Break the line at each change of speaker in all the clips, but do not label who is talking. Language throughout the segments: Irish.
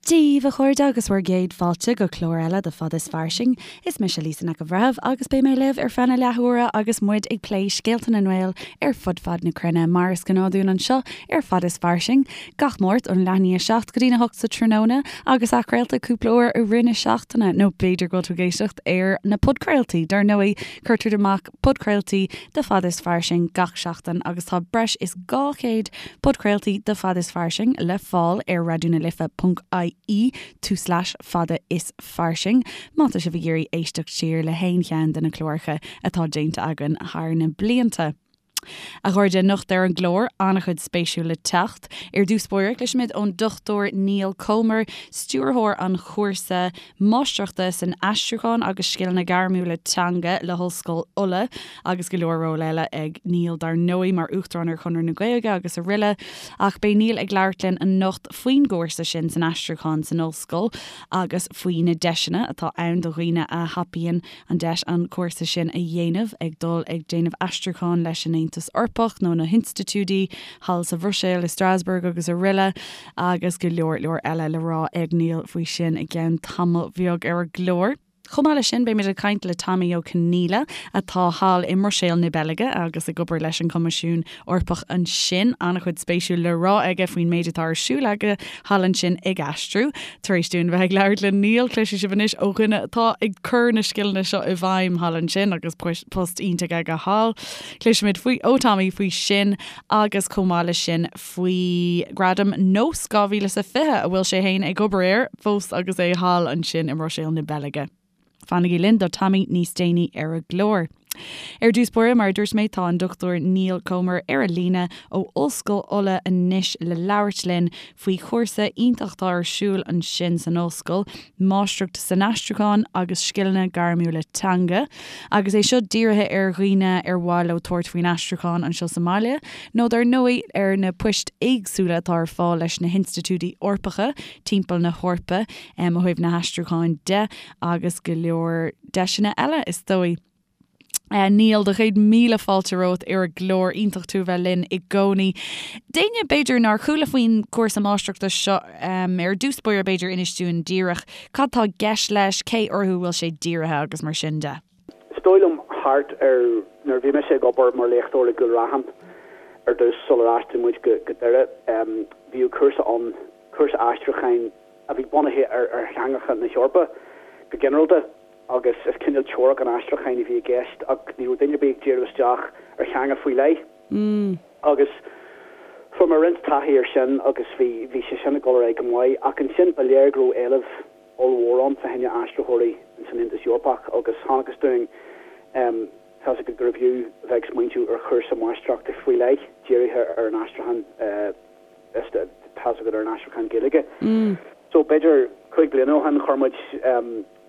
Dia daoibh, a chairde, agus bhur gcéad fáilte go clár eile de Fada is Fairsing. Is mise Lisa Nic an Bhreithimh agus beidh mé libh ar feadh na leathuaire agus muid ag plé scéalta na nGael ar fud fad na cruinne, mar is gnáth dúinn anseo ar Fada is Fairsing, gach Máirt ón leath i ndiaidh 7 go dtí'n 8 sa tráthnóna agus athchraolta cúpla uair i rith na seachtaine, nó b'fhéidir go bhfuil tú ag éisteacht ar na podchraoltaí, dar ndóigh, cuirtear amach podchraoltaí de Fada is Fairsing gach seachtain agus tá breis is 200 podchraoltaí de Fada is Fairsing le fáil ar raidionalife.ie tulslais fada is fairsing má tá sibh ag iarraidh éisteacht siar le haon cheann de na cláracha atá déanta againn thar na blianta. A chairde, anocht ar an gclár, an-chuid spéisiúil le teacht. Ar dtús báire, cloisfimid ón Dr Niall Comer, stiúrthóir an chúrsa Máistreachta san Aistriúchán agus Scileanna Gairmiúla Teanga le hOllscoil Uladh agus go leor ról eile ag Niall dar ndóigh mar Uachtarán ar Chonradh na Gaeilge agus aroile. Ach beidh Niall ag labhairt linn anocht faoin gcúrsa sin san aistriúchán san ollscoil agus faoi na deiseanna atá ann do dhaoine a thapaíonn an deis an cúrsa sin a dhéanamh, ag dul ag déanamh aistriúcháin leis an Aontas Eorpach nó na hinstitiúidí thall sa Bhruiséil, i Strasbourg agus aroile. Agus go leor leor eile le rá ag Niall faoi sin i gceann tamaill bheag ar an gclár. Chomh maith leis sin, beimid ag caint le Tommy Ó Conghaile, atá thall i mBruiséil na Beilge agus ag obair leis an Choimisiún Eorpach ansin. An-chuid spéisiúil le rá aige faoin méid atá ar siúl aige thall ansin ag aistriú. Tar éis dúinn bheith ag labhairt le Niall, cloisfidh sibh anois ó dhuine atá ag cur na scileanna seo i bhfeidhm thall ansin agus post iontach aige thall. Cloisfimid faoi ó Tommy faoi sin agus chomh maith leis sin faoi Ghradam Nós 2020 a bhfuil sé féin ag obair air fós agus é thall ansin i mBruiséil na Beilge. Fanaigí linn do Tommy níos déanaí ar an gclár. Ar dtús báire, mar a dúirt mé, tá an Dr Niall Comer ar an líne ó Ollscoil Uladh anois le labhairt linn faoi chúrsa iontach atá ar siúl ansin san ollscoil, Máistreacht san Aistriúchán agus Scileanna Gairmiúla Teanga, agus é seo dírithe ar dhaoine ar mhaith leo tabhairt faoin aistriúchán anseo sa mbaile, nó dar ndóigh ar na poist éagsúla atá ar fáil leis na hinstitiúidí Eorpacha timpeall na hEorpa ó thaobh na haistriúcháin de, agus go leor deiseanna eile is dóigh. Niall, do chéad míle fáilte romhat ar an gclár. Iontach tú a bheith linn i gcónaí. D'éinne, b'fhéidir, nár chuala faoin gcúrsa máistreachta seo ar dtús báire, b'fhéidir, inis dúinn díreach cad tá i gceist leis, cé orthu a bhfuil sé dírithe agus mar sin de.
Is dóigh liom thart ar nuair a bhí mise ag obair mar léachtóir i gCúil Raithin ar dtús sular aistrigh muid go Doire, bhíodh cúrsa ann, cúrsa aistriúcháin a bhí bunaithe ar theangacha na hEorpa go ginearálta. agus is cineál teoiric an aistriúcháin a bhí i gceist ach ní raibh duine ar bith ag díriú isteach ar theanga faoi leith. Agus fuair mé roinnt taithí ar sin agus bhí, bhí sé sin ag dul ar aghaidh go maith ach ansin ba léir go raibh éileamh ollmhór ann fá choinne aistritheoirí ins an Aontas Eorpach agus chonacthas dúinn, tá's agat, gurbh fhiú a bheith ag smaointiú ar chúrsa máistreachta faoi leith dírithe ar an aistriúchán. tá's agat ar an aistriúchán Gaeilge. So b'fhéidir 5 bliana ó shin chuir muid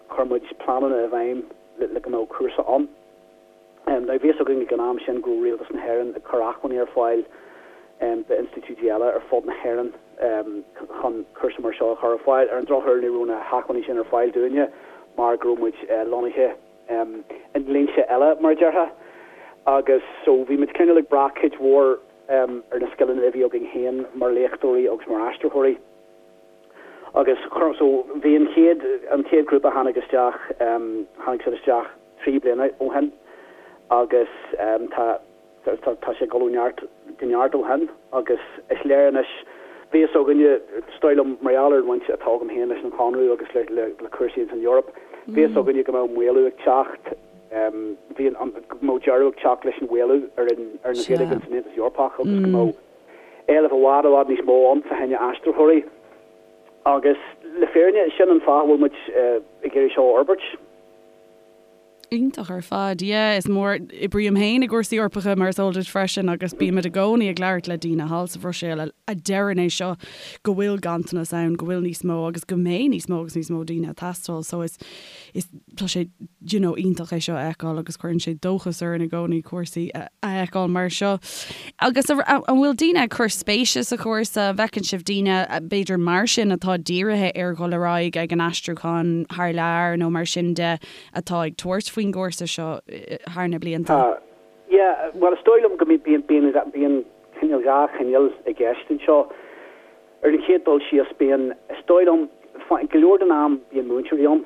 chuir muid pleananna i bhfeidhm le go mbeadh cúrsa ann. Now bhí fhios againn ag an am sin go raibh Rialtas na hÉireann ag cur acmhainní ar fáil d'institiúidí eile ar fud na hÉireann chun cúrsa mar seo a chur ar fáil. Ar an drochuair ní raibh na hacmhainní sin ar fáil dúinne mar go raibh muid lonnaithe i ndlínse eile mar a déarfá agus so bhí muid cineál ag brath cuid mhór ar na scileanna a bhí againn féin mar léachtóirí agus mar aistritheoirí. Agus chuir, so bhí an chéad, an chéad ghrúpa a tháinig isteach, tháinig siad isteach 3 bliana ó shin agus tá, tá, tá sé ag dul ó neart go neart ó shin agus is léir anois, bhí fhios againne, is dóigh liom, mar gheall ar an bhaint atá agam féin leis an Chonradh agus le, le, le cúrsaí ins an Eoraip, bhí fhios againne go mbeadh maolú ag teacht, bhí an, go mbeadh deireadh ag teacht leis an mhaolú ar an, ar an Ghaeilge ins an Aontas Eorpach agus go mbeadh éileamh i bhfad, i bhfad níos mó ann fá choinne aistritheoirí. Agus le fírinne, sin an fáth a bhfuil muid ag iarraidh seo a fhorbairt.
Iontach ar fad. Yeah, is mór, oibrím féin i gcúrsaí Eorpacha mar is eol duit freisin agus bímid i gcónaí ag labhairt le daoine thall sa Bhruiséil a deireann é seo, go bhfuil ganntanas ann, go bhfuil níos mó agus go mbeidh níos mó agus níos mó daoine ag teastáil. So is, is, tá sé, you know, iontach é seo a fheiceáil agus cuireann sé dóchas orainn i gcónaí cúrsaí a fheiceáil mar seo. Agus an bhfuil daoine ag cur spéise sa chúrsa? An bhfeiceann sibh daoine, b'fhéidir mar sin, atá dírithe ar dhul ar aghaidh ag an aistriúchán thar lear nó mar sin de, atá ag tabhairt faoin gcúrsa seo thar na blianta?
Tá. Yeah, bhuel is dóigh liom go mbíonn, bíonn, bíonn cineál, dhá chineál i gceist anseo. Ar an chéad dul síos, bíonn, is dóigh liom, Go leor den am bíonn múinteoirí ann,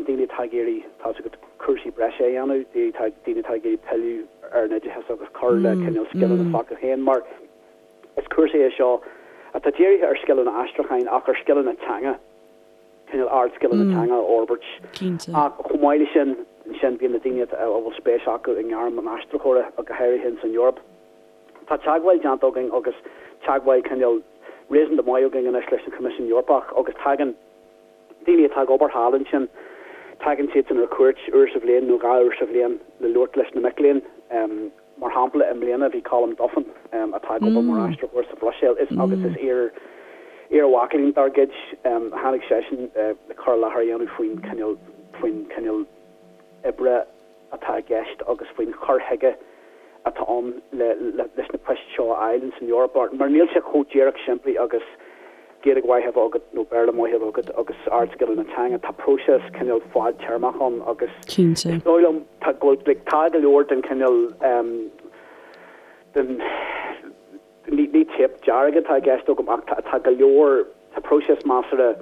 daoine atá ag iarraidh, tá's agat, cúrsaí breise a dhéanamh, daoine atá ag iarraidh pilleadh ar an oideachas agus cur le cineál scileanna s'acu féin mar is cúrsa é seo atá dírithe ar scileanna aistriúcháin ach ar scileanna teanga, cineál ardscileanna teanga a fhorbairt. Ach chomh maith leis sin, ansin bíonn na daoine a bhfuil spéis acu i ngairm an aistritheora, go háirithe ins an Eoraip. Tá teagmháil déanta againn agus teagmháil cineál réasúnta maith againn anois leis an Choimisiún Eorpach agus tagann daoine atá ag obair thall ansin, tagann siadsan ar cuairt uair sa bhliain nó 2 uair sa bhliain le labhairt leis na mic léinn. Mar shampla, i mbliana bhí Colm Duffin, atá ag obair mar aistritheoir sa Bhruiséil is agus is iar iar-mhac léinn dár gcuid, tháinig seisean le cur i láthair a dhéanamh faoin cineál faoin cineál oibre atá i gceist agus faoin chur chuige atá ann leis na poist seo a fháil ins an Eoraip mar níl sé chomh díreach simplí agus Gaeilge mhaith a bheith agat nó Béarla maith a bheith agat agus ardscileanna teanga. Tá próiseas cineál fadtéarmach ann agus is dóigh liom tá go bhfuil like tá go leor den chineál den ní ní téip dearg atá i gceist agam ach tá tá go leor tá próiseas measartha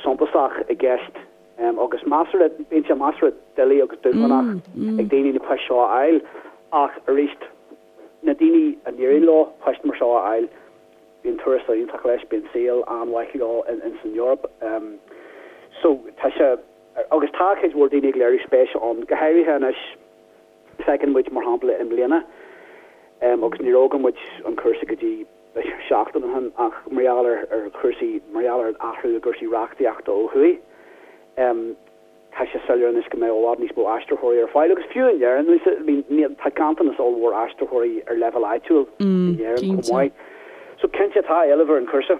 suntasach i gceist Agus measartha, bíonn sé measartha doiligh agus dúshlánach ag daoine na poist seo a fháil ach arís, na daoine a n-éiríonn leo poist mar seo a fháil, bíonn tuarastal iontach leis, bíonn saol an-mhaith leo ins an Eoraip. So, tá sé, agus tá cuid mhór daoine ag léiriú spéise ann, go háirithe anois, feiceann muid mar shampla i mbliana, agus ní raibh againn muid an cúrsa go dtí, seachtain ó shin ach mar gheall ar chúrsaí, mar gheall ar an athrú i gcúrsaí reachtaíochta ó thuaidh, tá sé soiléir anois go mbeidh i bhfad níos mó aistritheoirí ar fáil agus fiú in Éirinn, I mean, tá ganntanas ollmhór aistritheoirí ar leibhéal áitiúil in Éirinn chomh maith. So cinnte tá éileamh ar an chúrsa.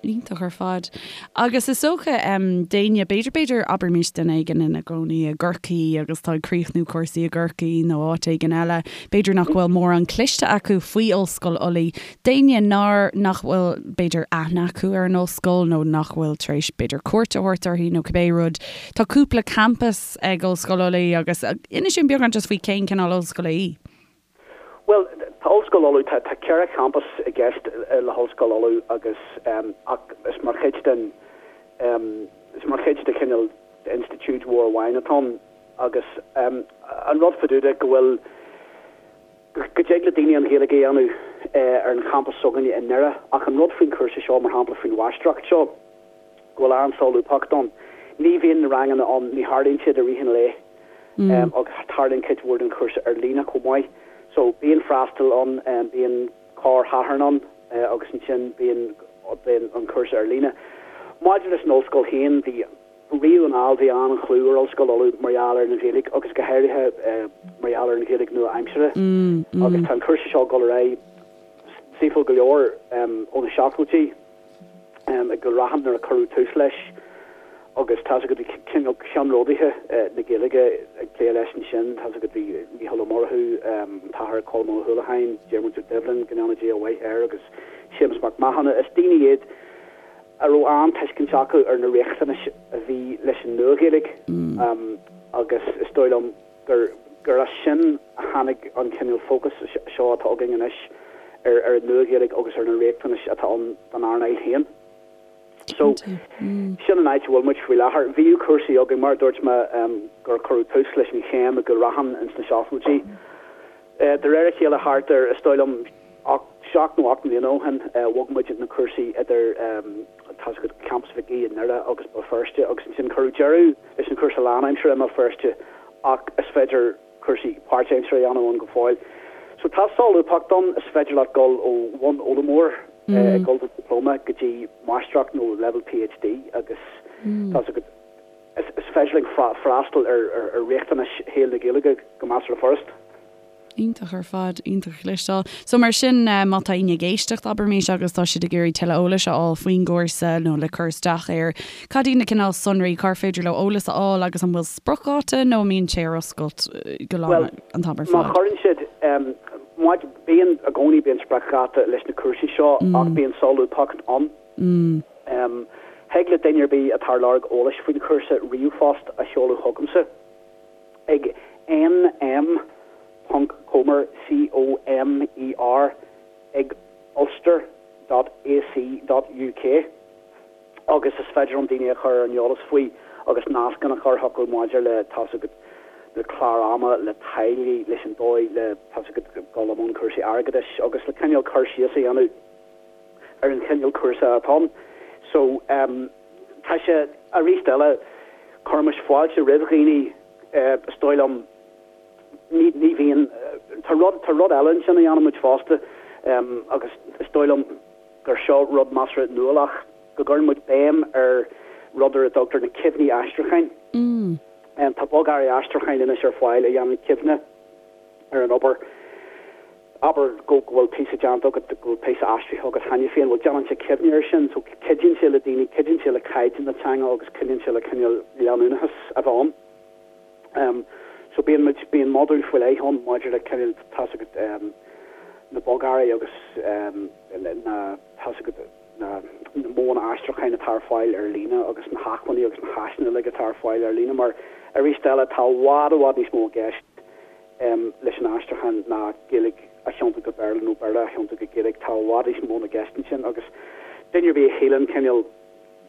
Iontach ar fad. Agus is dócha, d'éinne, b'fhéidir, b'fhéidir, abraimis duine éigin ina gcónaí i gCorcaigh agus tá ag críochnú cúrsaí i gCorcaigh nó áit éigin eile, b'fhéidir nach bhfuil mórán cloiste acu faoi Ollscoil Ulaidh. D'éinne nár, nach bhfuil, b'fhéidir, aithne acu ar an ollscoil nó nach bhfuil tar éis, b'fhéidir, cuairt a thabhairt uirthi nó cibé rud, tá cúpla campas ag Ollscoil Ulaidh agus inis dúinn beagán just faoi cén cineál ollscoile í.
Bhuel, tá Ollscoil Uladh, tá tá 4 champas i gceist le hOllscoil Uladh agus ach is mar chuid den is mar chuid de chineál d'institiúid mhór amháin atá ann agus an rud fá dtaobh de go bhfuil go dtig le daoine an Ghaeilge a dhéanamh ar an champas s'againne i nDoire ach an rud faoin chúrsa seo, mar shampla faoin mháistreacht seo, go bhfuil an-solúbthacht ann. Ní bhíonn na ranganna ann, ní tharlaíonn siad i rith an lae agus tarlaíonn cuid mhór den chúrsa ar líne chomh maith. So bíonn freastal ann, bíonn corr-Shatharn ann agus ansin bíonn bíonn an cúrsa ar líne. Maidir leis an ollscoil féin, bhí riamh anall bhí an-chlú ar Ollscoil Uladh mar gheall ar an Ghaeilge agus go háirithe mar gheall ar an Ghaeilge nua-aimseartha agus tá an cúrsa seo ag dul ar aghaidh saoithiúil go leor ó na seachtóidí. i gCúil Raithin nuair a cuireadh tús leis agus tá's agat bhí cineál ceannródaithe na Gaeilge ag plé leis ansin, tá's agat bhí Mícheál Ó Murchú, an tAthair Colm Ó hUallacháin, Diarmuid Ó Doibhlin, go ndéana Dia a mhaith air, agus Séamus Mac Mathúna. Is daoine iad a raibh an-tuiscint acu ar na riachtanais a bhí leis an Nua-Ghaeilge agus is dóigh liom gur gur as sin a tháinig an cineál fócas seo atá againn anois ar ar an Nua-Ghaeilge agus ar na riachtanais atá ann don earnáil féin. So, sin an áit a bhfuil muid faoi láthair. Bhíodh cúrsaí againn, mar a dúirt mé, gur cuireadh tús leis an chéim i gCúil Raithin ins na seachtóidí. De réir a chéile thart ar, is dóigh liom, 7 nó 8 mbliana ó shin, bhog muid na cúrsaí idir, tá's agat, Campas Mhic Aoidh i nDoire agus Béal Feirste agus ansin cuireadh deireadh leis an chúrsa lánaimseartha i mBéal Feirste ach is féidir cúrsaí páirtaimseartha a dhéanamh ann go fóill. So tá solúbthacht ann, is féidir leat dul ó bhunfhoghlaimeoir ag dul do dioplóma go dtí máistreacht nó leibhéal PhD agus tá's agat, is féidir linn freastal ar riachtanais shaol na Gaeilge go measartha furast.
Iontach ar fad, iontach a chloisteáil. So mar sin, má tá éinne ag éisteacht, abraimis, agus tá siad ag iarraidh tuilleadh eolais a fháil faoin gcúrsa nó le cur isteach air, cad iad na cineál sonraí, cár féidir leo eolas a fháil agus an bhfuil spriocdháta nó an mbíonn sé ar oscailt go lá
Bhuel,
an t-am ar
má
fad?
chuireann siad, má, bíonn, i gcónaí bíonn spriocdháta leis na cúrsaí seo ach bíonn solúbthacht ann. Thig le duine ar bith atá ar lorg eolais faoin chúrsa ríomhphost a sheoladh chugamsa ag nm ponc comer, C-O-M-E-R, ag ulster dot ac dot uk. Agus is féidir liom daoine a chur ar an eolas faoi agus nascanna a chur chucu maidir le, tá's agat, le clár ama, le táillí, leis an dóigh le, tá's agat, dul i mbun cúrsaí airgeadais agus le cineál cur síos a dhéanamh ar an chineál cúrsa atá ann. So, tá sé, arís eile, cuirimis fáilte roimh dhaoine, is dóigh liom, ní, ní bhíonn, tá rud, tá rud eile ansin a dhéanann muid fosta agus is dóigh liom gur seo rud measartha nuálach, go gcuireann muid béim ar rud ar a dtugtar na cuimhní aistriúcháin. Tá bogearraí aistriúcháin anois ar fáil a dhéanann cuimhne ar an obair. Abair go bhfuil píosa déanta agat, go bhfuil píosa aistrithe agat cheana féin, bhuel déanann sé cuimhne air sin so cuidíonn sé le daoine, cuidíonn sé le caighdeán na teanga agus cuidíonn sé le cineál leanúnachas a bheith ann. So bíonn muid, bíonn modúl faoi leith ann maidir le cineál, tá's agat, na bogearraí agus na, tá's agat, na modhanna aistriúcháin atá ar fáil ar líne agus na hacmhainní agus na háiseanna uilig atá ar fáil ar líne mar arís eile tá i bhfad i bhfad níos mó i gceist leis an aistriúchán ná Gaeilge a thiontú go Béarla nó Béarla a thiontú go Gaeilge, tá i bhfad níos mó i gceist ansin agus duine ar bith a shíleann cineál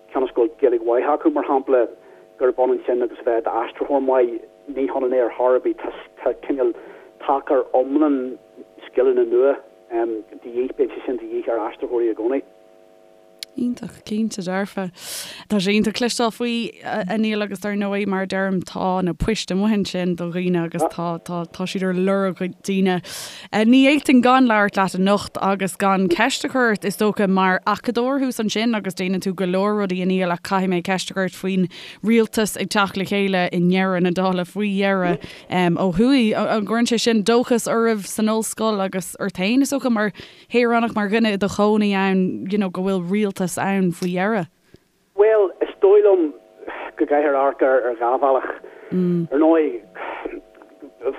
cionn is go bhfuil Gaeilge mhaith acu, mar shampla, gurb ionann sin agus a bheith i d'aistritheoir maith, ní hionann é ar chor ar bith. Tá cineál tacar iomlán scileanna nua de dhíth, bíonn sé sin de dhíth ar aistritheoirí i gcónaí.
Iontach, cinnte dearfa. Tá sé iontach cloisteáil faoi, a Niall, agus dar ndóigh, mar a deirim, tá na poist amuigh ansin do dhaoine agus tá, tá, tá siad ar lorg daoine. Ní fhéadfainn gan labhairt leat anocht agus gan ceist a chur ort, is dócha, mar acadóir thuas ansin agus déanann tú go leor rudaí, a Niall, ach caithfidh mé ceist a chur ort faoin rialtas ag teacht le chéile i ndeireadh na dála, faoi dheireadh, ó thuaidh. An gcuireann sé sin dóchas oraibh san ollscoil agus ort féin, is dócha, mar shaoránach, mar dhuine i do chónaí ann, you know, go bhfuil rialtas ann faoi dheireadh?
Bhuel, is dóigh liom go gcaithfear amharc air ar dhá bhealach. Ar ndóigh,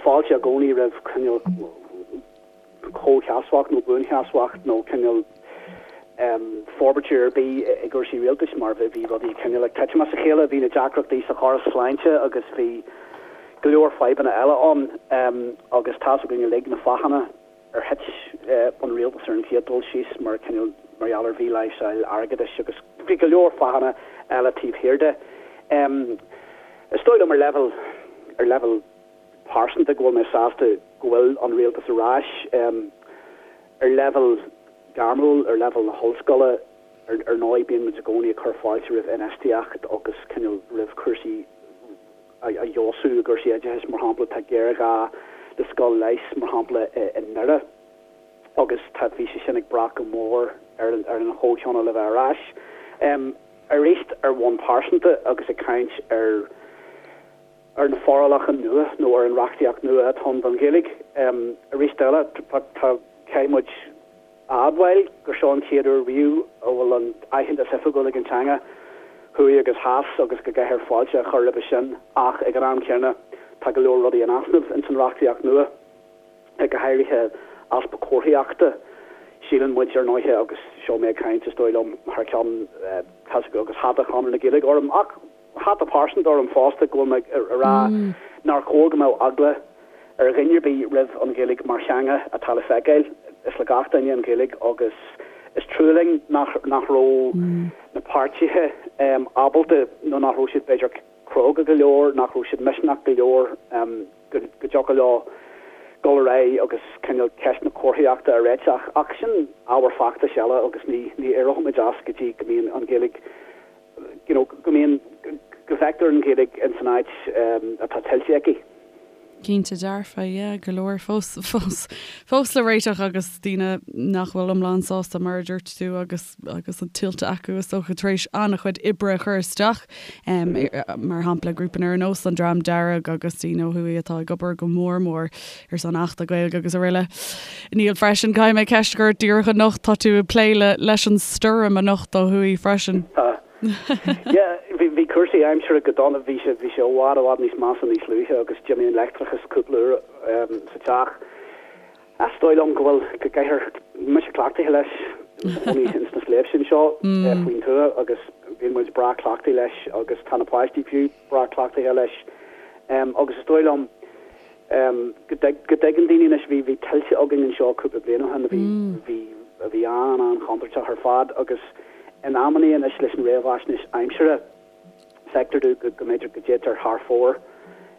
fáilte i gcónaí roimh cineál comhsheasmhacht nó buansheasmhacht nó cineál forbairt ar bith i gcúrsaí rialtais mar bhí rudaí cineál ag titim as a chéile, bhí na deacrachtaí sa chóras sláinte agus bhí go leor fadhbanna eile ann agus tá's againn uilig na fáthanna ar thit an rialtas ar an chéad dul síos mar cineál mar gheall ar mhí-láimhseáil airgeadais agus bhí go leor fáthanna eile taobh thiar de. Is dóigh liom ar leibhéal ar leibhéal pearsanta go bhfuil mé sásta go bhfuil an rialtas ar ais. Ar leibhéal gairmiúil, ar leibhéal na hollscoile, ar ndóigh bíonn muid i gcónaí ag cur fáilte roimh infheistíocht agus cineál roimh chúrsaí a fheabhsú i gcúrsaí oideachais, mar shampla, tá géarghá le scoil leighis, mar shampla, i nDoire agus tá, bhí sé sin ag brath go mór ar an, ar an chomhthionól a bheith ar ais. Arís, ar bhonn pearsanta agus ag caint ar, ar na forálacha nua nó ar an reachtaíocht nua atá ann don Ghaeilge, arís eile, tá, tá, caithfidh muid, a admháil gur seo an chéad uair riamh a bhfuil an aitheantas oifigiúil ag an teanga, thuaidh agus theas, agus go gcaithfear fáilte a chur roimhe sin ach ag an am céanna tá go leor rudaí in easnamh ins an reachtaíocht nua, go háirithe easpa comharthaíochta. Síleann muid, ar ndóighe, agus seo mé ag caint is dóigh liom thar ceann, tá's agat, agus hata Chonradh na Gaeilge orm ach hata pearsanta orm fosta, go bhfuil mé ag rá nár chóir go mbeadh eagla ar dhuine ar bith roimh an Ghaeilge mar theanga atá le feiceáil. Is le gach duine an Ghaeilge agus is trua linn nach nach raibh na páirtithe ábalta nó nach raibh siad b'fhéidir cróga go leor, nach raibh siad misneach go leor go dtiocfadh leo dul ar aghaidh agus cineál ceist na comharthaíochta a réiteach. Ach sin ábhar feachtais eile agus ní ní éireoimid as go dtí go mbíonn an Ghaeilge you know, go mbíonn, go bhfeictear an Ghaeilge ins an áit atá tuillte aici.
Cinnte dearfa, yeah, go leor fós, fós, fós le réiteach agus daoine nach bhfuil iomlán sásta mar a dúirt tú agus, agus an tuillte acu is dócha tar éis an-chuid oibre a chur isteach, mar shampla grúpa ar nós an Dream Dearg agus daoine ó thuaidh atá ag obair go mór mór ar son Achta Gaeilge agus araile. Niall freisin, caithfidh mé ceist a chur ort díreach anocht, tá tú ag plé le leis an stoirm anocht ó thuaidh freisin.
Tá. Yeah, bhí bhí cúrsaí aimsire go dona, bhí sé bhí sé i bhfad i bhfad níos measa níos luaithe agus d'imigh an leictreachas cúpla uair sa teach. Is dóigh liom go bhfuil go gcaithfear mise cleachtaithe leis i mo chónaí ins na sléibhte anseo faoin tuath agus bíonn muid breá cleachtaithe leis agus tá na páistí fiú breá cleachtaithe leis agus is dóigh liom go dtuigeann daoine anois, bhí, bhí tuilte againn anseo cúpla bliain ó shin a bhí, bhí, a bhí an-an-chontúirteach ar fad agus. In amannaí anois leis an réamhaisnéis aimsire, feictear domh go mb'fhéidir go dtéitear thar fóir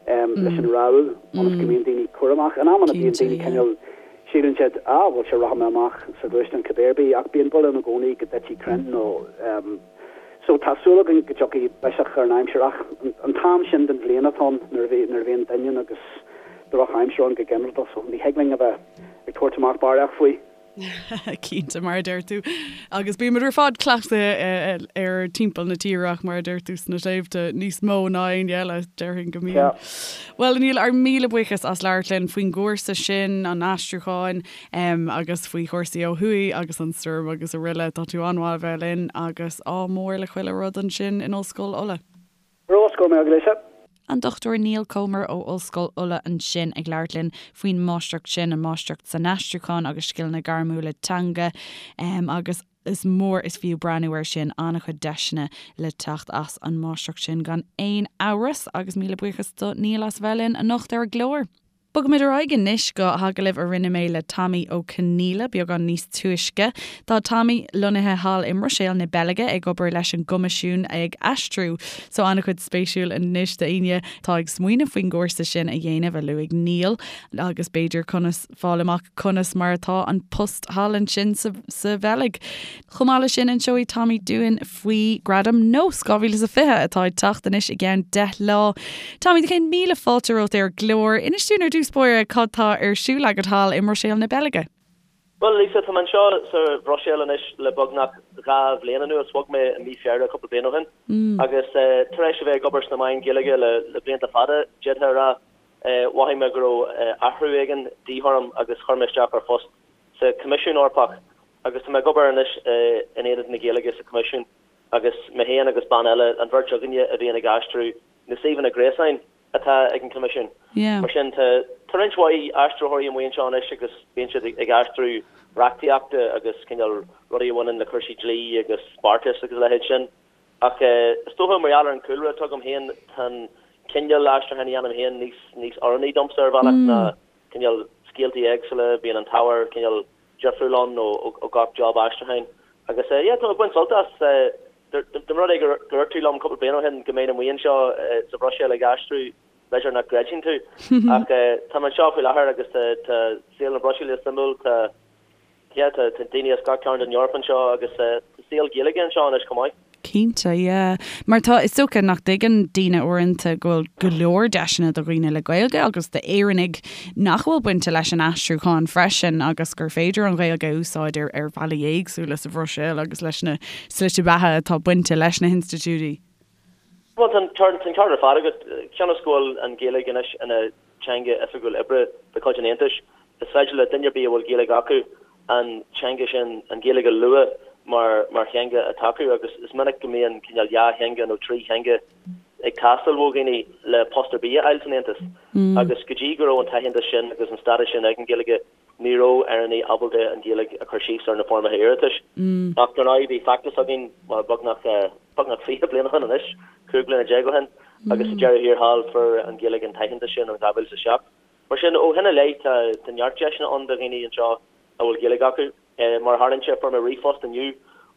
leis an rabhadh ionas go mbíonn daoine cúramach. In amanna bíonn daoine cineál, síleann siad, ah bhuel sure rachaidh mé amach sa ghluaisteán cibé ar bith ach bíonn baol ann i gcónaí go dtitfidh crainn nó so tá súil againn go dtiocfaidh biseach ar an aimsir ach an t-am sin den bhliain atá ann nuair a bhíonn doineann agus drochaimsir ann go ginearálta so ní thig linn a bheith ag tabhairt amach barraíocht faoi.
Cinnte, mar a deir tú. Agus bímid ar fad cleachtaithe ar timpeall na tíre ach mar a deir tú sna sléibhte níos mó ná éinne eile, déarfainn go mbíonn. Bhuel, a Neil, ár míle buíochas as labhairt linn faoin gcúrsa sin, an aistriúcháin, agus faoi chúrsaí ó thuaidh agus an stoirm agus araile. Tá tú an-mhaith a bheith linn agus ádh mór le chuile rud ansin in Ollscoil Uladh.
Rós, go raibh maith agat, Lisa.
An Dr Neil Comer ó Ollscoil Uladh ansin ag labhairt linn faoin máistreacht sin, an máistreacht san aistriúchán agus scileanna gairmiúla teanga agus is mór is fiú breathnú air sin, an-chuid deiseanna le teacht as an máistreacht sin gan aon amhras agus míle buíochas do Neil as a bheith linn anocht ar an gclár. Bogaimid ar aghaidh anois go hagallamh a rinne mé le Tommy Ó Conghaile beagán níos túisce. Tá Tommy lonnaithe thall i mBruiséil na Beilge ag obair leis an gCoimisiún ag aistriú. So an-chuid spéisiúil anois d'éinne atá ag smaoineamh faoin gcúrsa sin a dhéanamh a luaigh Neil agus b'fhéidir conas fáil amach conas mar atá an post thall ansin sa sa Bheilg. Chomh maith leis sin inseoidh Tommy dúinn faoi Gradam Nós 2020 atá ag teacht anois i gceann 10 lá. Tommy, do chéad míle fáilte romhat ar an gclár. Inis dúinn ar dtús báire cad tá ar siúl agat thall i mBruiséil na Beilge.
Bhuel, Lisa, tá mé anseo sa Bhruiséil anois le beagnach 2 bhliain anuas. Bhog mé i mí Feabhra cúpla bliain ó shin agus tar éis a bheith ag obair sna meáin Ghaeilge le blianta fada, d'fhéadfá a rá, mhothaigh mé go raibh athrú éigin de dhíth orm agus chuir mé isteach ar phost sa Choimisiún Eorpach agus tá mé ag obair anois in Aonad na Gaeilge sa Choimisiún agus mé féin agus bean eile, an bheirt againne a bhíonn ag aistriú na suíomhanna gréasáin atá ag an Choimisiún. Mar sin, tá roinnt mhaith aistritheoirí amuigh anseo anois agus bíonn siad ag aistriú reachtaíochta agus cineál rudaí a bhaineann le cúrsaí dlí agus beartais agus a leithéid sin. Ach is dócha, mar gheall ar an chúlra atá agam féin, tá an cineál aistriúcháin a dhéanaim féin níos níos oiriúnaí domsa ar bhealach ná cineál scéaltaí éagsúla, bíonn an t-ábhar cineál difriúil ann ó gach job aistriúcháin. Agus yeah, tá mé ag baint sult as. Dá mba rud é gur dhúirt tú liom cúpla bliain ó shin go mbeinn amuigh anseo sa Bhruiséil ag aistriú, b'fhéidir nach gcreidfinn tú. Ach tá mé anseo faoi láthair agus tá saol na Bruiséile suimiúil, tá Yeah, tá daoine as gach cearn den Eoraip anseo agus tá saol Gaeilge anseo anois chomh maith.
Cinnte, yeah. Mar tá, is dócha nach dtuigeann daoine uaireanta go bhfuil go leor deiseanna do dhaoine le Gaeilge agus d'Éireannaigh nach bhfuil bainte leis an aistriúchán freisin agus gur féidir an Ghaeilge a úsáid ar ar bhealaí éagsúla sa Bhruiséil agus leis na slite beatha atá bainte leis na hinstitiúidí.
Bhuel, tá an ceart ar fad agat. Cionn is go bhfuil an Ghaeilge anois ina teanga oifigiúil oibre de chuid an Aontais, is féidir le duine ar bith a bhfuil Gaeilge acu an teanga sin, an Ghaeilge a lua mar mar theanga atá acu agus is minic go mbíonn cineál dhá theanga nó trí theanga ag teastáil ó dhaoine le post ar bith a fháil san Aontas. Agus go dtí go raibh an t-aitheantas sin agus an stádas sin ag an Ghaeilge, Ní raibh Éireannaigh ábalta an Ghaeilge a chur síos ar na foirmeacha iarratais. Ach dar ndóigh bhí feachtas againn, bhuel, beagnach, beagnach 20 bliain ó shin anois, 15 bliana ó shin, agus sa deireadh thiar thall fuair an Ghaeilge an t-aitheantas sin in 2007. Mar sin, ó shin i leith tá, tá neart deiseanna ann do dhaoine anseo a bhfuil Gaeilge acu. Mar a tharlaíonn sé, fuair mé ríomhphost inniu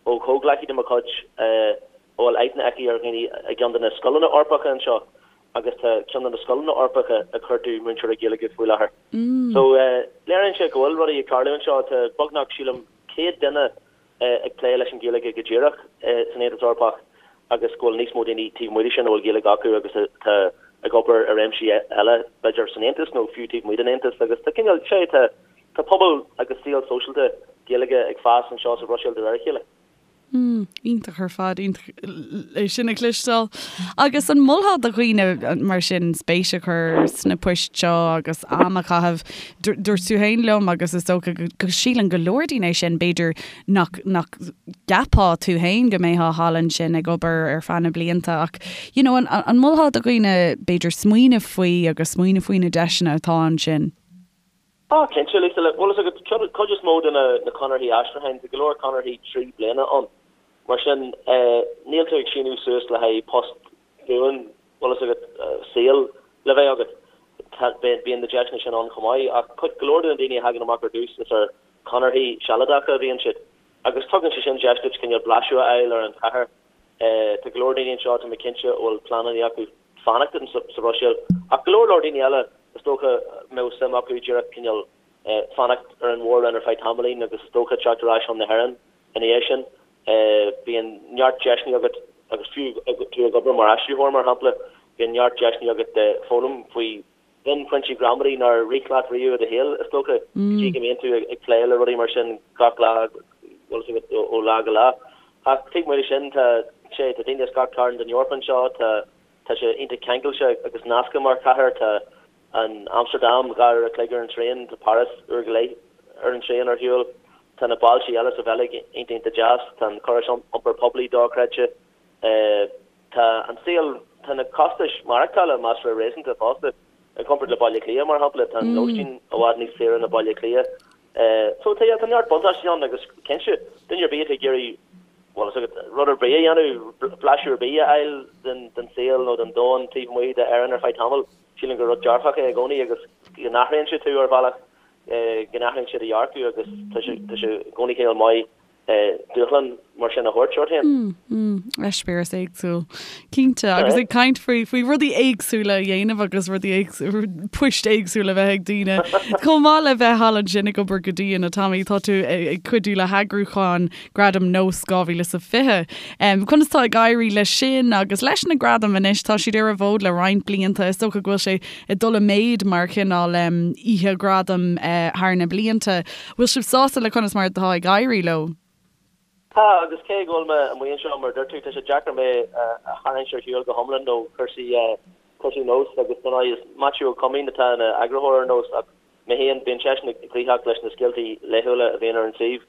ó chomhghleacaí de mo chuid a bhfuil aithne aici ar dhaoine i gceann de na scoileanna Eorpacha anseo agus tá ceann de na scoileanna Eorpacha ag cuartú múinteoirí Gaeilge faoi láthair. So, léiríonn sé go bhfuil rudaí ag tarlú anseo. Tá beagnach, sílim, 100 duine ag plé leis an Ghaeilge go díreach san Aontas Eorpach agus go bhfuil níos mó daoine taobh amuigh de sin a bhfuil Gaeilge acu agus atá ag obair i réimsí eile, b'fhéidir san Aontas nó fiú taobh amuigh den Aontas. Agus tá cineál, sé, tá tá pobal agus saol sóisialta Gaeilge ag fás anseo sa Bhruiséil de réir a chéile.
Mm, iontach ar fad, iontach é sin a chloisteáil. Agus an molfá do dhaoine mar sin spéis a chur sna poist seo agus am a chaitheamh? Dúirt tú féin liom agus is dócha go síleann go leor daoine é sin, b'fhéidir nach nach gceapfá tú féin go mbeifeá thall ansin ag obair ar feadh na blianta ach you know an an molfá do dhaoine b'fhéidir smaoineamh faoi agus smaoineamh faoi na deiseanna atá ansin?
Á, cinnte, Lisa, bhfuil fhios agat, cuid is mó de na conarthaí aistriúcháin, tá go leor conarthaí 3 bliana ann. Mar sin, níl tú ag síniú suas le haghaidh post buan, bhfuil fhios agat, saoil le bheith agat. Tá, bíonn na deiseanna sin ann chomh maith, ach cuid, go leor de na daoine a thagann amach ar dtús, is ar chonarthaí sealadacha a bhíonn siad. Agus tugann sé sin deis duit cineál blaiseadh a fháil ar an chathair. Tá go leor daoine anseo, tá mé cinnte, a bhfuil pleananna acu fanacht sa Bhruiséil, ach go leor leor daoine eile, is dócha, a mbeadh suim acu díreach cineál fanacht ar an mhór-roinn ar feadh tamaillín agus is dócha teacht ar ais chun na hÉireann ina dhiaidh sin. Bíonn neart deiseanna agat agus fiú tú ag obair mar aistritheoir, mar shampla, bíonn neart deiseanna agat foghlaim faoi mhionphointí gramadaí nár rith leat riamh i do shaol, is dócha, go dtí go mbíonn tú ag plé le rudaí mar sin gach lá, bhfuil fhios agat, ó lá go lá. Ach taobh amuigh de sin, tá sé, tá daoine as gach cearn den Eoraip anseo, tá, tá sé iontach ceangailte agus nasctha mar chathair, tá an Amstardam 2 uair a chloig ar an traein, tá Páras uair go leith ar an traein ar shiúl, tá na bailte eile sa Bheilg iontach iontach deas, tá an córas iompair poiblí dochreidte. Tá an saol, tá na costais maireachtála measartha réasúnta fosta. I gcomparáid le Baile Átha Cliath, mar shampla, tá an lóistín i bhfad níos saoire ná Baile Átha Cliath. So tá, yeah, tá neart buntáistí ann agus cinnte, duine ar bith atá ag iarraidh, bhuel, is agat, rud ar bith a dhéanamh, blaiseadh ar bith a fháil den, den saol nó den domhan taobh amuigh d'Éirinn ar feadh tamaill, sílim gur rud dearfach é i gcónaí agus go n-athraíonn sé tú ar bhealach, go n-athraíonn sé do dhearcadh agus tá sé, tá sé i gcónaí cineál maith dúshlán mar sin a thabhairt ort féin.
Eispéireas éagsúil. Cinnte. Agus ag caint faoi faoi rudaí éagsúla a dhéanamh agus rudaí éagsúla, poist éagsúla a bheith ag daoine. Chomh maith le bheith thall ansin ag obair go dian, a Tommy, tá tú ag cuidiú le heagrúchán Gradam Nós 2020. Conas tá ag éirí leis sin agus leis na gradaim anois? Tá siad ar an bhfód le roinnt blianta. Is dócha go bhfuil sé ag dul i méid mar chineál oíche ghradam thar na blianta. Bhfuil sibh sásta le conas mar atá ag éirí leo?
Tá, agus cé go bhfuil mé amuigh anseo, mar a dúirt tú, tá sé deacair mé a tharraingt ar shiúl go hiomlán ó chúrsaí cúrsaí Nós agus dar ndóigh is Maitiú Ó Coimín atá ina eagarthóir ar Nós ach mé féin, bíonn seisean gnoitheach leis na scéaltaí laethúla a bhíonn ar an suíomh.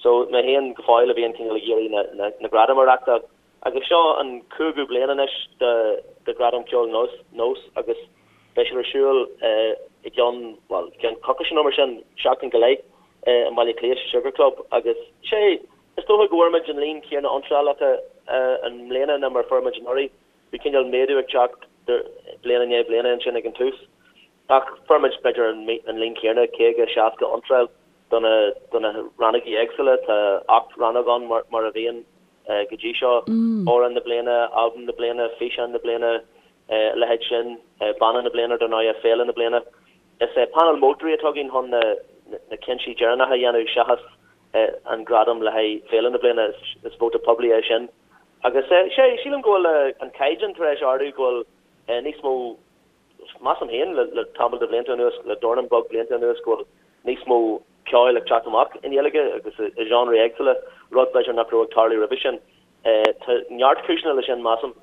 So mé féin go fóill a bhíonn cineál ag iarraidh na na na gradaim a reachtáil. Agus seo an cúigiú bliain anois de Ghradam Ceoil Nós agus beidh siad ar siúl i gceann, bhuel, i gceann coicíse nó mar sin, seachtain go leith, i mBaile Átha Cliath sa Sugar Club agus sé, is dócha go bhfuair muid an líon céanna iontrálacha i mbliana ná mar a fuair muid anuraidh. Bhí cineál méadú ag teacht bliain i ndiaidh bliana ansin ag an tús. Ach fuair muid b'fhéidir an líon céanna, 50, 60 iontráil do na rannógaí éagsúla. Tá 8 rannóg ann mar a bhíonn go dtí seo, Amhrán na Bliana, Albam na Bliana, Físeán na Bliana, a leithéid sin, Banna na Bliana dar ndóigh, Féile na Bliana. Is é painéal moltóirí atá againn chun na cinntí deireanacha a dhéanamh seachas an gradam le haghaidh Féile na Bliana, is vóta poiblí é sin. Agus sé, sílim go bhfuil an caighdeán tar éis ardú, go bhfuil níos mó Measaim féin, le tamall de bhlianta anuas, le dornán beag blianta anuas, go bhfuil níos mó ceoil ag teacht amach i nGaeilge agus i genres éagsúla, rud b'fhéidir nach raibh ag tarlú roimhe sin. Tá neart cúiseanna leis sin, measaim,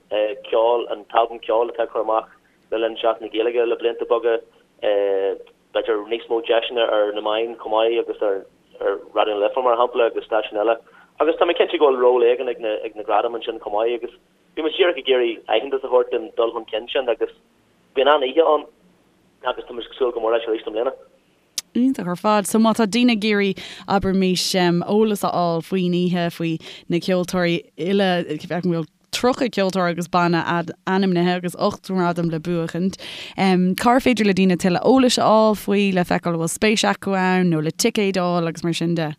ceol, an t-albam ceoil atá á chur amach le linn Seachtain na Gaeilge le blianta beaga, b'fhéidir níos mó deiseanna ar na meáin chomh maith agus ar Raidió na Life, mar shampla, agus stáisiúin eile. Agus tá mé cinnte go bhfuil ról éigin ag na gradaim ansin chomh maith agus Bhí muid díreach ag iarraidh aitheantas a thabhairt don dul chun cinn sin agus bíonn an-oíche ann agus tá muid ag súil go mór leis arís i mbliana.
Iontach ar fad. So má tá daoine ag iarraidh, abraimis, eolas a fháil faoin oíche, faoi na ceoltóirí uile, feicim go bhfuil 30 ceoltóir agus banna ainmnithe agus 8 ngradam le buachaint, cár féidir le daoine tuilleadh eolais a fháil faoi le feiceáil an bhfuil spéis acu ann nó le ticéid a fháil agus mar sin de?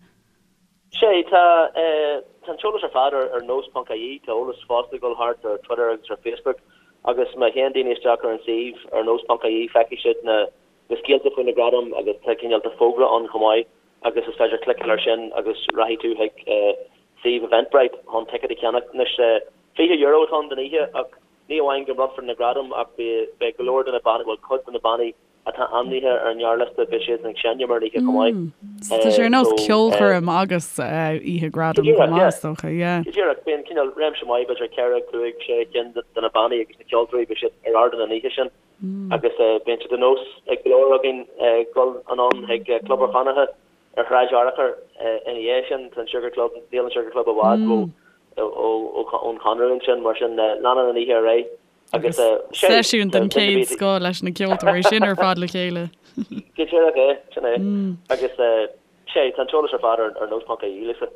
Sea, tá tá an t-eolas ar fad ar ar nós ponc ie, tá eolas fosta ag dul thart ar Twitter agus ar Facebook agus má théann daoine isteach ar an suíomh ar nós ponc ie feicfidh siad na na scéalta faoi na gradaim agus tá cineál de fógra ann chomh maith agus is féidir cliceáil air sin agus rachaidh tú chuig suíomh Eventbrite chun ticéad a cheannach. Anois €20 atá ann don oíche ach ní amháin go mbronnfar na gradaim ach beidh go leor de na bannaí, bhuel cuid de na bannaí atá ainmnithe ar an ngearrliosta, beidh siad ag seinm ar an oíche chomh maith.
So tá sé ar nós ceolchoirm agus oíche gradam chomh maith, is dócha, yeah.
Go díreach, bíonn cineál réimse maith, b'fhéidir 4, 5, 6 cinn de na bannaí agus na ceoltóirí, beidh siad ar ardán an oíche sin agus bíonn sé de nós ag go leor againn dul anonn chuig Club an Chonartha ar Shráid Fhearchair ina dhiaidh sin. Tá an Sugar Club, níl an Sugar Club i bhfad ón Chonradh ansin, mar sin leanann an oíche ar aghaidh.
Agus seisiún den chéad scoth leis na ceoltóirí sin ar fad le chéile.
Go díreach é, sin é. Agus sé, tá an t-eolas ar fad ar nós ponc ie, Lisa.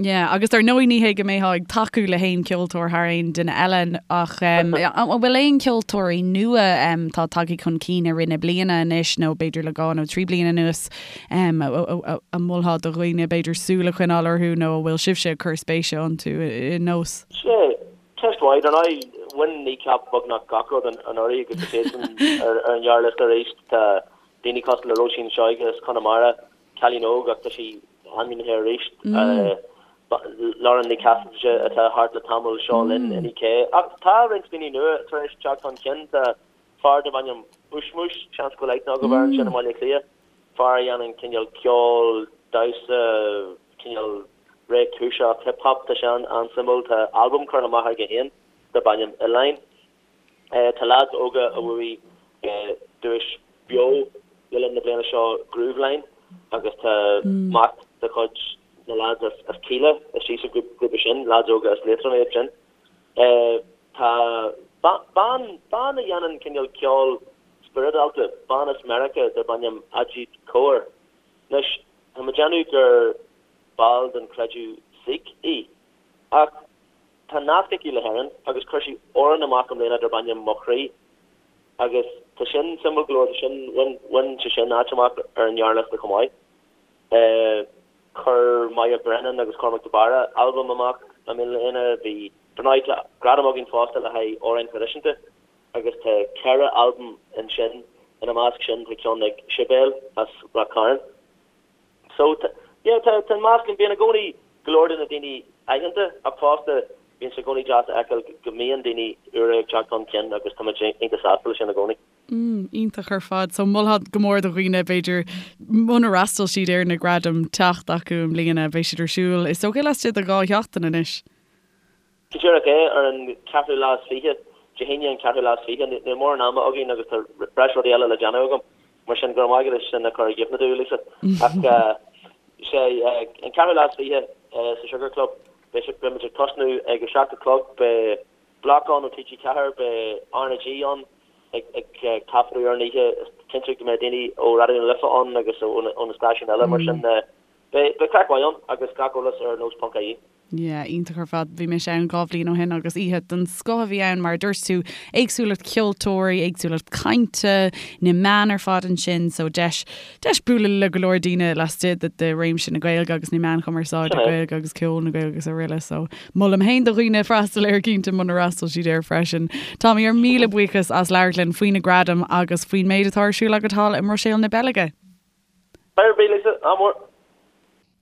Yeah, agus ar ndóigh ní hé go mbeifeá ag tacú le haon ceoltóir thar aon duine eile ach an bhfuil aon ceoltóirí nua atá tagtha chun cinn i rith na bliana anois nó b'fhéidir le dhá nó trí bliana anuas a mholfá do dhaoine b'fhéidir súil a choinneáil orthu nó a bhfuil sibhse ag cur spéise iontu i nós?
Sea, ceist mhaith. Ar ndóigh, bhain Kneecap beagnach gach rud anuraidh agus tá siadsan ar an ghearrliosta arís. Tá daoine cosúil le Róisín Seoige as Conamara, Cailín óg ach tá sí ainmnithe arís. Lauren Ní Chasaide atá thart le tamall, Seo Linn, Inni-K. Ach tá roinnt daoine nua tar éis teacht chun cinn. Tá fear darb ainm Ushmush, seans go bhfuil aithne agaibh air ansin i mBaile Átha Cliath, fear a dhéanann cineál ceol, damhsa, cineál réchúiseach hip hop, tá sé an-suimiúil. Tá albam curtha amach aige féin darb ainm Oileáin. Tá leaids óga a bhuaigh duais Beo le linn na bliana seo, Grooveline, agus tá mac de chuid na leaids as Kíla istigh sa ghrúpa sin, leaids óga as Liatroim iad sin. Tá bean, bean a dhéanann cineál ceol spioradálta, bean as Meiriceá darb ainm Ajeet Kaur. Anois, tá mé ag déanamh gur ball den chreideamh Sikh í, ach Tá nasc aici le hÉirinn agus chuir sí amhrán amach i mbliana darb ainm Mo Chroí agus tá sin suimiúil go leor, tá sin, bhain, bhain sé sin áit amach ar an ngearrliosta chomh maith. Chuir Moya Brennan agus Cormac de Barra albam amach i mbliana, bhí, dar ndóigh tá gradam againn fosta le haghaidh amhráin thraidisiúnta agus tá 4 albam ansin, ina measc sin tá ceann ag Sibéal as Ráth Chairn. So, yeah, tá an meascán, bíonn i gcónaí go leor de na daoine aitheanta ach fosta bíonn sé i gcónaí deas a fheiceáil go mbíonn daoine úra ag teacht chun cinn agus tá muid iontach sásta leis sin i gcónaí.
Mm, iontach ar fad. So molfá go mór do dhaoine b'fhéidir munar fhreastail siad ar na gradaim teacht acu i mbliana, beidh siad ar siúl is dócha laistigh de dhá sheachtain anois.
Go díreach é, ar an cheathrú lá is fiche, Dé hAoine an ceathrú lá is fiche. Níl mórán ama againn agus tá breis rudaí eile le déanamh agam, mar sin go raibh maith agat as sin a chur i gcuimhne domh, Lisa. Ach sé an ceathrú lá is fiche sa Sugar Club, beidh beidh muid ag tosnú ag a seacht a chlog, beidh Bloc ann ó TG4, beidh RnaG ann ag ag taifeadadh ar an oíche, is cinnte go mbeidh daoine ó Raidió na Life ann agus ó na stáisiúin eile, mar sin beidh beidh craic mhaith ann agus gach eolas ar nós.ie.
Yeah, iontach ar fad. Bhí mise ann dhá bhliain ó shin agus oíche den scoth a bhí ann, mar a dúirt tú, éagsúlacht ceoltóirí, éagsúlacht cainte, na meáin ar fad ansin, so deis, deis bualadh le go leor daoine laistigh de, de réimse na Gaeilge agus na meáin chumarsáide Gaeilge agus ceol na Gaeilge agus araile, so molaim féin do dhaoine freastal air cinnte munar fhreastail siad air freisin. Tommy, ár míle buíochas as labhairt linn faoi na gradaim agus faoin méid atá ar siúl agat thall i mBruiséil na Beilge.
Bye, Lisa, ádh mór.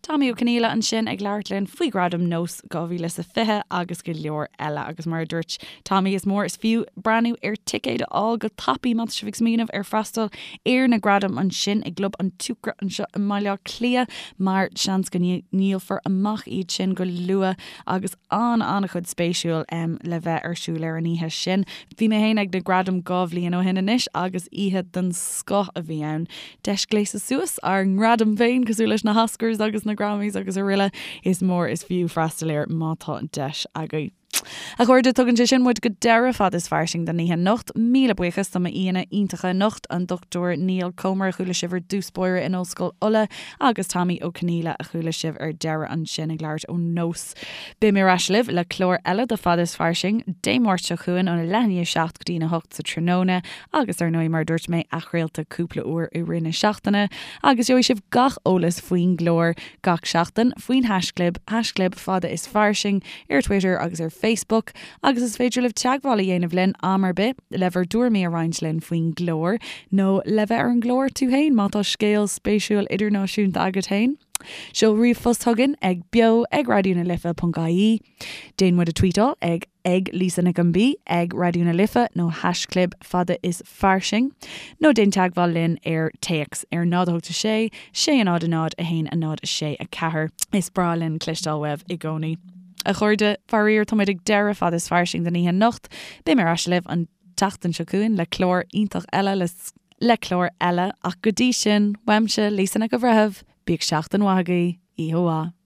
Tommy Ó Conghaile ansin ag labhairt linn faoi Ghradaim Nós 2020 agus go leor eile agus mar a dúirt Tommy is mór is fiú breathnú ar ticéid a fháil go tapaidh má tá sibh ag smaoineamh ar freastal ar na gradaim ansin i gClub an tSiúcra anseo i mBaile Átha Cliath mar seans go ndíolfar amach iad sin go luath agus an-an-chuid spéisiúil le bheith ar siúl ar an oíche sin. Bhí mé féin ag na gradaim dhá bhliain ó shin anois agus oíche den scoth a bhí ann. Deis gléasadh suas ár ngradaim féin, cosúil leis na hOscars agus na Grammys agus araile, is mór is fiú freastal air má tá an deis agaibh. A chairde, tugann sé sin muid go deireadh Fad is Fairsing don oíche anocht. Míle buíochas do m'aíonna iontacha anocht, an Dr Niall Comer a chuala sibh ar dtús báire in Ollscoil Uladh agus Tommy Ó Conghaile a chuala sibh ar deireadh ansin ag labhairt ó Nós. Beidh mé ar ais libh le clár eile de Fad is Fairsing Dé Máirt seo chugainn óna leath i ndiaidh a 7 go dtí'n 8 sa tráthnóna agus ar ndóigh mar a dúirt mé athchraolta cúpla uair i rith na seachtaine agus gheobhaidh sibh gach eolas faoin gclár gach seachtain faoin haischlib, haischlib fada is fairsing ar Twitter agus ar Facebook agus is féidir libh teagmháil a dhéanamh linn am ar bith le bhur dtuairimí a roinnt linn faoin gclár nó le bheith ar an gclár tú féin má tá scéal spéisiúil idirnáisiúnta agat féin. Seol ríomhphost chugainn ag beo ag raidió na life ponc ie. Déan muid a tweetáil ag ag Lisa Nic an B, ag Raidió na Life nó haischlib fada is fairsing. Nó déan teagmháil linn ar téacs ar 0 8 6 6 0 0 1 0 6 4. Is breá linn cloisteáil uaibh i gcónaí. A chairde, faraor tá muid ag deireadh fada is fairsing don oíche anocht. Beidh mé ar ais libh an tseachtain seo chugainn le clár iontach eile le le clár eile ach go dtí sin, uaimse, Lisa Nic an Bhreithimh, bíodh seachtain mhaith agaibh, oíche mhaith.